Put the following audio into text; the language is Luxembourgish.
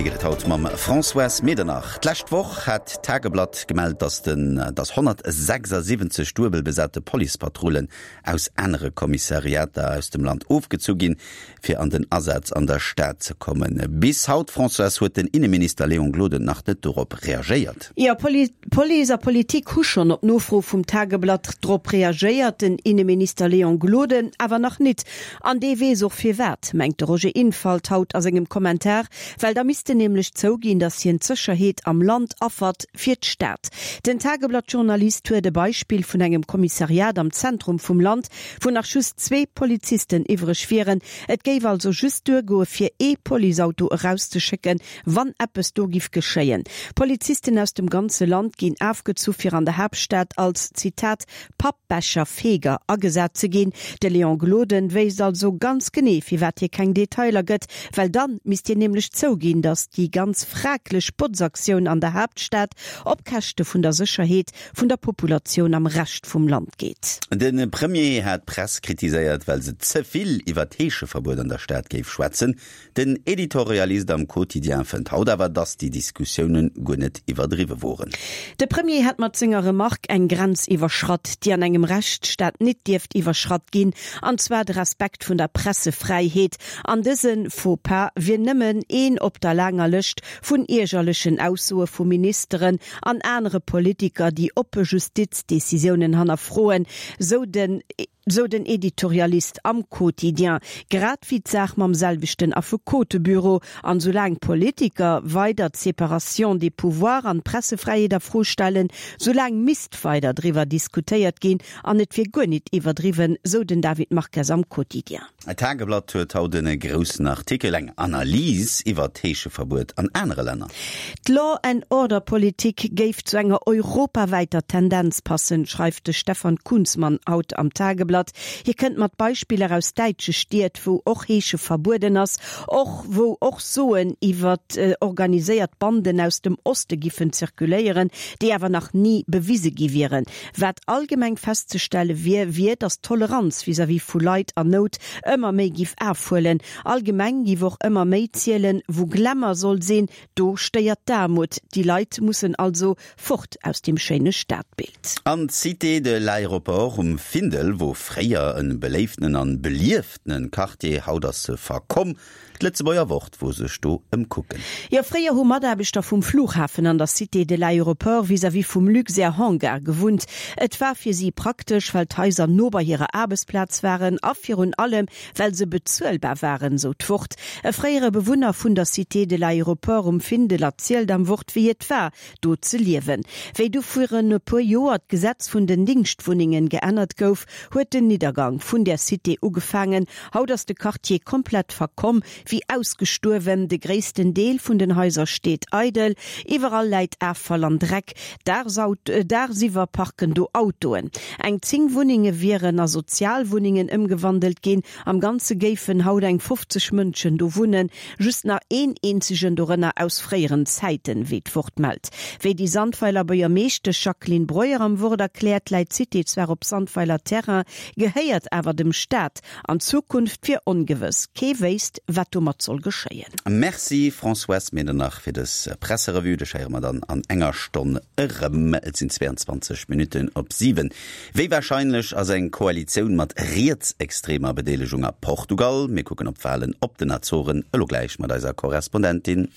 Wéi geet et haut mam Françoise Medernach? D'lescht Woch hat d'Tageblatt gemellt, datt den datt 176 duebel besate Policepatrullen aus anere Kommissariater aus dem Land ofgezu ginn, fir an den Asaz an der Stad ze kommen. Bis haut, Françoise, huet den Inneminister Léon Gloden nach net dorop reagéiert. Jo, Police a Politik hu schonn op Nofro vum Tageblatt drop reagéiert, den Inneminister Léon Gloden awer nach nit. An dee weess och firwat, mengt de Roger Infalt haut a sengem Kommentar, well da misst en nämlech zouginn, datt hien d'Sécherheet am Land affert fir d'Stad. Den Tageblatt-Journalist huet e Beispill vun engem Kommissariat am Zentrum vum Land, wou nach just zwee Polizisten iwwreg wieren. Et géif also just duergoe fir ee Policeauto erauszeschécken, wann eppes do giff geschéien. Polizisten aus dem ganze Land ginn afgezu fir an der Haaptstad als, Zitat, Pappbecherfeger agesat ze ginn. De Léon Gloden wéisst also ganz genee firwat hie keng Detailer gëtt, well dann misst hien nämlech zouginn, datt déi ganz fraglech Botzaktioun an der Haaptstad op Käschte vun der Sécherheet vun der Populatioun am Rescht vum Land geet. De Premier hat d'Press kritiséiert, well se ze vill iwwer d'Heescheverbuet an der Stad géif schwätzen. Den Editorialist am Quotidien fënnt haut awer, datt déi Diskussioune guer net iwwerdriwwe woren. De Premier hätt mat senger Remark eng Grenz iwwerschratt, déi an engem Rechtsstaat nit dierft iwwerschratt ginn, an zwar de Respekt vun der Pressefräiheet. An dëse Faux-pas wier nëmmen een op der laanger Lëscht vun iergerlechen Aussoe vu Ministeren an anere Politiker, déi oppe Justizdecisiounen hannerfroen, sou den. Sou den Editorialist am Quotidien. Grad wéi d'Saach mam selwechten Affekotebüro. An soulaang d'Politiker weider d'Séparation des pouvoirs an d'Pressefräiheet a Fro stellen, soulaang misst weider driwwer diskutéiert ginn an et wier guer nit iwwerdriwwen, sou den David Marques am Quotidien. D'Tageblatt huet haut en groussen Artikel, eng Analys iwwer d'Heescheverbuet an anere Länner. D'Law and Order Politik géif zu enger europawäiter Tendenz passen, schreift de Stefan Kunzmann haut am Tageblatt. Hie kënnt mat Beispiller aus däitsche Stied, wou och Heesche verbueden ass, och wou och Soen iwwer organiséiert Banden aus dem Oste giffen zirkuléieren, déi awer nach ni bewise gi wieren. Wat allgemeng festzestelle wier, wier, datt d'Toleranz vis-à-vis vu Leit an Nout ëmmer méi giff afhuelen. Allgemeng giff och ëmmer méi zielen, wou Glamour soll sinn, do stéiert d'Aarmut. Déi Leit mussen also fort aus dem schéine Stadbild. An d'Cité de l'Aéroport um Findel wor fréier en beléiftenen an belieftenen Quartier, haut ass se verkomm. D'Lëtzebuerger Wort wor sech do ëmkucken. Jo, fréier hu Mataarbechter vum Flughafen an der Cité de l'Aéroport vis-à-vis vum Luxair Hangar gewunnt. Et war fir si praktesch, well d'Haiser no bei hirer Aarbechtsplaz waren a virun allem, well se bezuelbar waren, sou d'Wort. E fréiere Bewunner vun der Cité de l'Aéroport um Findel erzielt am Wort, wéi et war, do ze liewen. Wéi du virun e puer Joer d'Gesetz vun den Dingschtwunnengen geännert gouf, huet den Niddergang vun där Cité ugefaangen. Haut ass de Quartier komplett verkomm, wéi ausgestuerwen. De gréissten Deel vun den Haiser steet eidel, iwwerall läit Affall an Dreck. Daagsiwwer parken do Autoen. Eng 10 Wunnenge wieren a Sozialwunnengen ëmgewandelt ginn. Am Ganze géifen haut eng 50 Mënschen do wunnen, just nach een eenzegen dorënner aus fréieren Zäiten, wéi d'Wort mellt. Wéi déi Sandweiler Buergermeeschtesch Jacqueline Breuer am Wort erkläert, läit d'Cité zwar op Sandweiler Terrain, gehéiert awer dem Staat. An d'Zukunft wier ongewëss, kee wéisst, wat domat soll geschéien. Merci Françoise Medernach fir dës Presserevue. Dech héiere mer dann an enger Stonn erëm. Et sinn 22 Minutten op 7. Wéi warscheinlech ass eng Koalitioun mat rietsextremer Bedeelegung a Portugal? Mir kucken op d'Walen op den Azoren, elo gläich mat eiser Korrespondentin.